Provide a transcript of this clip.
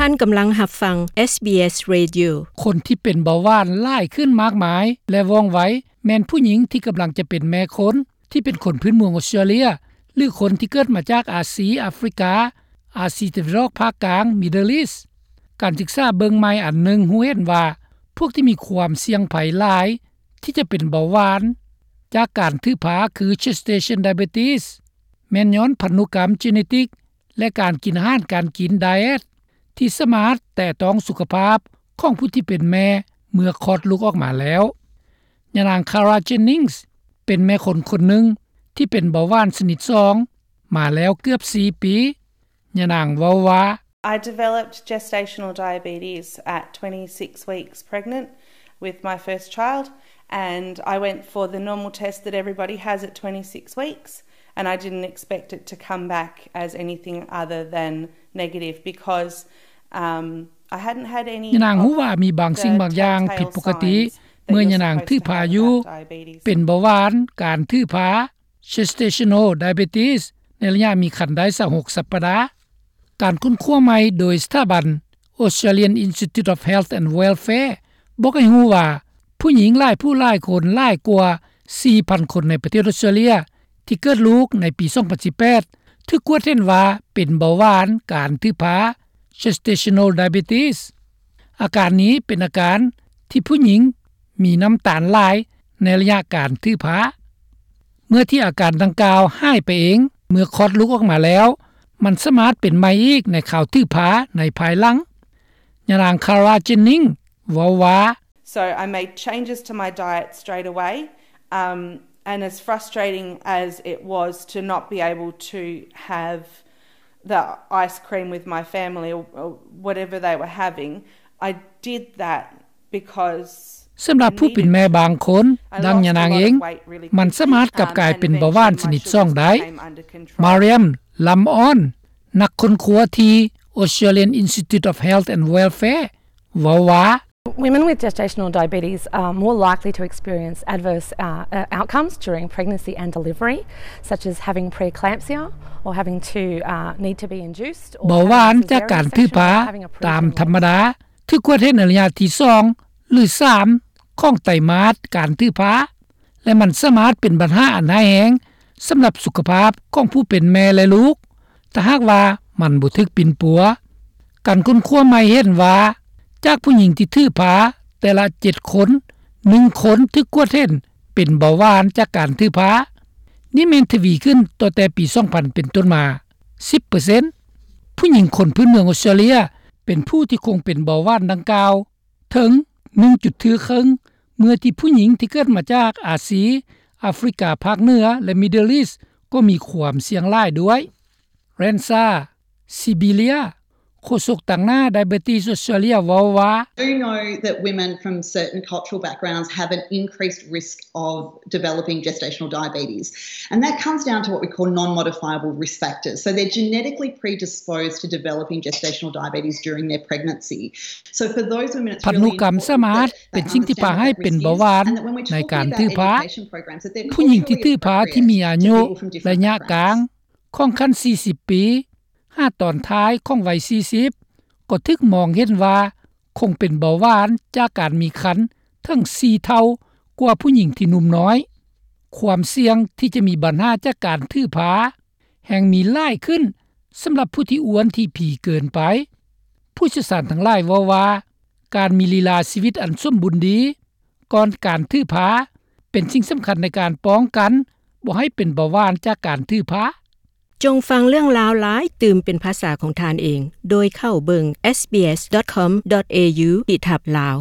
ທ່ານກຳລັງຮັບຟັງ ເອສບີເອສ Radio. ຄົນທີ່ເປັນເບົາຫວານຫຼາຍຂຶ້ນມາກມາຍ ແລະ ວ່ອງໄວ ແມ່ນຜູ້ຍິງທີ່ກຳລັງຈະເປັນແມ່ຄົນ ທີ່ເປັນຄົນພື້ນເມືອງອົດສະຕຣາເລຍ ຫຼື ຄົນທີ່ເກີດມາຈາກອາຊີ, ອາຟຣິກາ, ອາຊີຕາເວັນອອກພາກກາງ, Middle East. ການສຶກສາເບິ່ງໃໝ່ອັນໜຶ່ງຮູ້ເຫັນວ່າ ພວກທີ່ມີຄວາມສ່ຽງໄພຫຼາຍທີ່ຈະເປັນເບົາຫວານຈາກການຖືພາ ຄື gestational diabetes ແມ່ນຍ້ອນພັນທຸກຳ genetic ແລະ ການກິນອາຫານການກິນ diet ທີ່ສາມາດແຕະຕ້ອງສຸຂະພາບຂອງຜູ້ທີ່ເປັນແມ່ເມື່ອຄອດລູກອອກມາແລ້ວ. ຍານາງ Kara Jennings ເປັນແມ່ຄົນຄົນໜຶ່ງທີ່ເປັນເບົາຫວານຊະນິດສອງມາແລ້ວເກືອບສີ່ປີ. ຍານາງເວົ້າວ່າ, I developed gestational diabetes at twenty-six weeks pregnant with my first child, and I went for the normal test that everybody has at twenty-six weeks, and I didn't expect it to come back as anything other than negative because, um, I hadn't had any. ຍານາງຮູ້ວ່າມີບາງສິ່ງບາງຢ່າງຜິດປົກກະຕິເມື່ອຍານາງຖືພາຢູ່ ເປັນເບົາຫວານ, ການຖືພາ gestational diabetes ໃນໄລຍະມີຄັນໄດ້ຊາວຫົກສັບປະດາ. ການຄົ້ນຄວ້າໃໝ່ໂດຍສະຖາບັນ Australian Institute of Health and Welfare ບອກໃຫ້ຮູ້ວ່າ ຜູ້ຍິງຫຼາຍຜູ້ຫຼາຍຄົນ ຫຼາຍກວ່າສີ່ພັນຄົນໃນປະເທດອົດສະຕຣາເລຍ ທີ່ເກີດລູກໃນປີສອງພັນສິບແປດ ຖືກກວດເຫັນວ່າເປັນເບົາຫວານ, ການຖືພາ gestational diabetes. ອາການນີ້ເປັນອາການທີ່ຜູ້ຍິງມີນ້ຳຕານຫຼາຍໃນໄລຍະການຖືພາ. ເມື່ອທີ່ອາການດັ່ງກ່າວຫາຍໄປເອງເມື່ອຄອດລູກອອກມາແລ້ວ, ມັນສາມາດເປັນໃໝ່ອີກໃນຄາວຖືພາໃນພາຍຫຼັງ. ຍານາງ Kara Jennings ເວົ້າວ່າ, So I made changes to my diet straight away, um, and as frustrating as it was to not be able to have the ice cream with my family or, or whatever they were having, I did that because ສຳລັບຜູ້ເປັນແມ່ບາງຄົນ, ດັ່ງຍານາງເອງ, ມັນສາມາດກັບກາຍເປັນເບົາຫວານຊະນິດສອງໄດ້. Mariam Lamon, ນັກຄົ້ນຄວ້າທີ່ Australian Institute of Health and Welfare ເວົ້າວ່າ, Women with gestational diabetes are more likely to experience adverse, uh, uh, outcomes during pregnancy and delivery, such as having preeclampsia or having to, uh, need to be induced or ເບົາຫວານຈາກການຖືພາຕາມທຳມະດາ ຖືກກວດເຫັນໃນໄລຍະທີສອງ ຫຼື ສາມ ຂອງໄຕມາດການຖືພາ ແລະ ມັນສາມາດເປັນບັນຫາອັນຮ້າຍແຮງສຳລັບສຸຂະພາບຂອງຜູ້ເປັນແມ່ ແລະ ລູກ ຖ້າຫາກວ່າມັນບໍ່ຖືກປິ່ນປົວ. ການຄົ້ນຄວ້າໃໝ່ເຫັນວ່າ ຈາກຜູ້ຍິງທີ່ຖືພາແຕ່ລະເຈັດຄົນ, ໜຶ່ງຄົນຖືກກວດເຫັນເປັນເບົາຫວານຈາກການຖືພາ. ນີ້ແມ່ນທະວີຂຶ້ນຕັ້ງແຕ່ປີສອງພັນເປັນຕົ້ນມາ ສິບເປີເຊັນ. ຜູ້ຍິງຄົນພື້ນເມືອງອົດສະຕຣາເລຍເປັນຜູ້ທີ່ຄົງເປັນເບົາຫວານດັ່ງກ່າວເຖິງໜຶ່ງຈຸດເຄິ່ງ ເມື່ອທີ່ຜູ້ຍິງທີ່ເກີດມາຈາກອາຊີ, ອາຟຣິກາພາກເໜືອ ແລະ Middle East ກໍມີຄວາມສ່ຽງຫຼາຍດ້ວຍ. Rensa Sibilia, ໂຄສົກຕາງໜ້າ Diabetes Australia ເວົ້າວ່າ, Do know that women from certain cultural backgrounds have an increased risk of developing gestational diabetes, and that comes down to what we call non-modifiable risk factors. So they're genetically predisposed to developing gestational diabetes during their pregnancy. So for those women, it's ພັນທຸກຳສາມາດເປັນສິ່ງທີ່ພາໃຫ້ເປັນເບົາຫວານໃນການຖືພາ. ຜູ້ຍິງທີ່ຖືພາທີ່ມີອາຍຸໄລຍະກາງຂອງຄັນສີ່ສິບປີ ຫາຕອນທ້າຍຂອງໄວສີ່ສິບ ກໍຖືກມອງເຫັນວ່າຄົງເປັນເບົາຫວານຈາກການມີຄັນເຖິງສີ່ເທົ່າກວ່າຜູ້ຍິງທີ່ໜຸ່ມນ້ອຍ. ຄວາມສ່ຽງທີ່ຈະມີບັນຫາຈາກການຖືພາແຮ່ງມີຫຼາຍຂຶ້ນສຳລັບຜູ້ທີ່ອ້ວນທີ່ພີເກີນໄປ. ຜູ້ຊ່ຽວຊານທັງຫຼາຍເວົ້າວ່າ ການມີລີລາຊີວິດອັນສົມບູນດີກ່ອນການຖືພາ ເປັນສິ່ງສຳຄັນໃນການປ້ອງກັນບໍ່ໃຫ້ເປັນເບົາຫວານຈາກການຖືພາ. ຈົ່ງຟັງເລື່ອງລາວຫຼາຍຕື່ມເປັນພາສາຂອງທ່ານເອງ ໂດຍເຂົ້າເບິ່ງ SBS dot com dot au ທີ່ທັບລາວ.